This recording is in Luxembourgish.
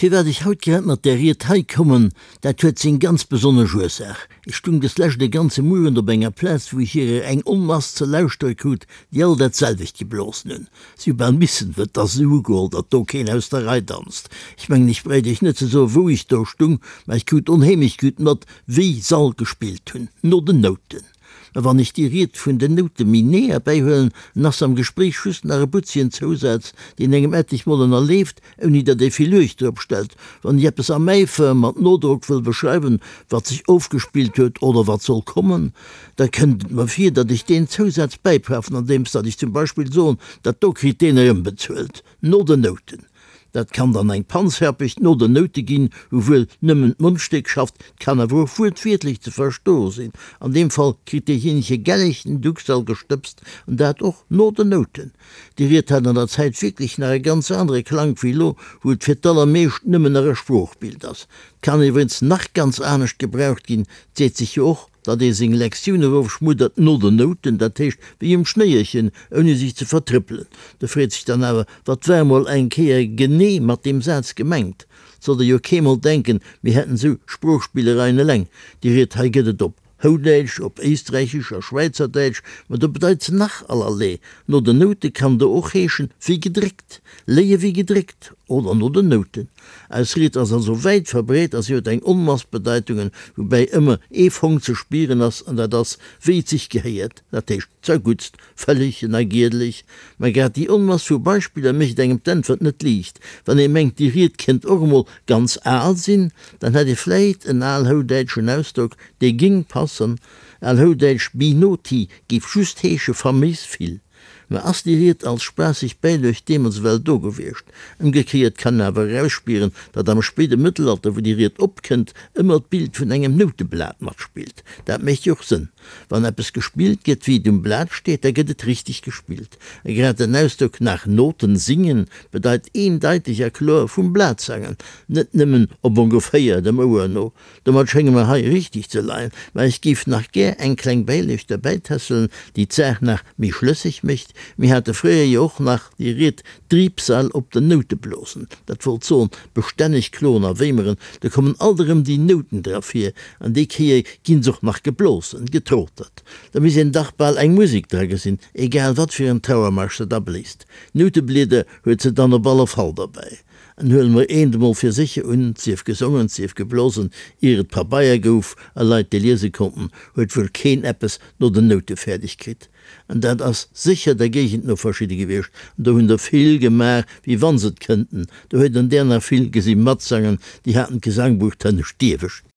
Firwat ech haut grad mat där Ried hei kommen, dat huet seng ganz besonnesch Ursaach. Ech stung des Lescht e ganze Muerent op enger Plaz, wou ech hirer eng Onmass ze lauschtere krut, déi all dat selwecht geblosen hunn. Si hu bal missen, wëll 't ass esou ugeholl, datt do keen aus der Rei danzt. Ech mengen, ech bréit iech net ze soen, wou ech do stung, mä ech krut onheemlech gutt mat, wéi s'all gespillt hunn, no den Nouten. Mä wann ech déi Ried vun den Noute méi nee erbäihuelen, en ass am Gespréich just nach e butzegen Zousaz, deen engem etlech Mol ënnerleeft, ouni datt ee vill Luecht drop stellt. Wann ech eppes am Äifer mat Nodrock wëll beschreiwen, wat sech ofgespillt huet oder wat soll kommen, da kënnt et mer vir, datt ech deen Zousaz bäipafen, andeems datt ech zum Beispill soen, dat do kritt deen erëmbezuelt, no den Nouten. Dat kann dann eng Panzherpecht no den Noute ginn, wou wuel nëmmen d'Mondstéck schafft, 't kann awer och wuertwiertlech ze verstoe sinn. An deem Fall kritt deejéinege gelleg den Duxall gestëbst, an dat och no den Nouten. Déi Ried hat an der Zäit wierklech nach e ganz anere Klank wéi elo, wou et fir d'allermeescht nëmmen nach e Sproochbild ass. 't kann iwwregens nach ganz anescht gebraucht ginn, 't seet sech jo och, datt ee seng Lektioun erofschmuddert no den Nouten, dat heescht wéi um Schnéierchen, ouni sech ze vertrëppelen. Do freet sech dann awer, Wat war emol eng Kéier genee mat deem Saz gemengt? 't sollt ee jo keemol denken, mir hätten esou Sproochspillereien eleng. Déi Ried hei gëtt et op Houdäitsch, op Éisträichesch a Schwäizerdäitsch, ma do bedeit se nach allerlee. No den Noute kann do och heeschen, wéi gedréckt, léie wéi gedréckt oder no den Nouten. Eis Ried ass also wäit verbreet a si huet eng Onmass Bedeitungen, woubäi ëmmer ee Fong ze spieren ass, an dat ass, wéi et sech gehéiert, dat heescht zerguttst, vëlleg a giedeleg. Mä grad déi Onmass vu Beispiller mécht engem d'Äntwert net liicht. Wann ee mengt, déi Ried kéint och emol ganz al sinn, dann hätt ee vläit en alhoudäitschen Ausdrock, dee géing passen, alhoudäitsch binoti géif just heesche faméis vill. Mä ass déi Ried als spaasseg Bäiluecht deemools ewell do gewiescht? Ëmgekéiert kann een awer erausspieren, datt am spéide Mëttelalter, wou déi Ried opkënnt, ëmmer d'Bild vun engem Nouteblat matspillt. Dat mécht jo och Sënn. Wann eppes gespillt gëtt, wéi et um Blat steet, da gëtt et richteg gespillt. A grad den Ausdrock nach Noten singen bedeit eendeiteg a kloer vum Blat sangen, net nëmmen op ongeféier dem Ouer no. Domat schénge mer hei richteg ze leien, mä ech géif nach gär eng kleng Bäiluecht derbäitässelen, déi d'Saach nach méi schlësseg mécht. Mir hate fréier jo och nach déi Ried Driibsal op den Noute blosen. Dat wollt soen, bestänneg kloen a wéimeren, do kommen alt erëm déi Nouten dra vir, an déi Kéier ginn s'och nach geblosen, getrotert. Da misst een dach bal eng Musek dra gesinn, egal wat fir en Trauermarsch se da bléist. Nouteblieder huet se dann op alle Fall derbäi. En huele mer eent emol fir sécher un, 't sief gesongen, 't sief geblosen, ier et Pabeier gouf a Leit déi liese konnten, huet wuel keen eppes no den Noute fäerdeg kritt. An dat ass sécher der Géigend no verschidde gewiescht, an do hunn der vill gemaach, wéi wann s'et kënnten. Do huet en der nach vill gesi matsangen, déi haten d'Gesangbuch d'hënnescht Diewescht.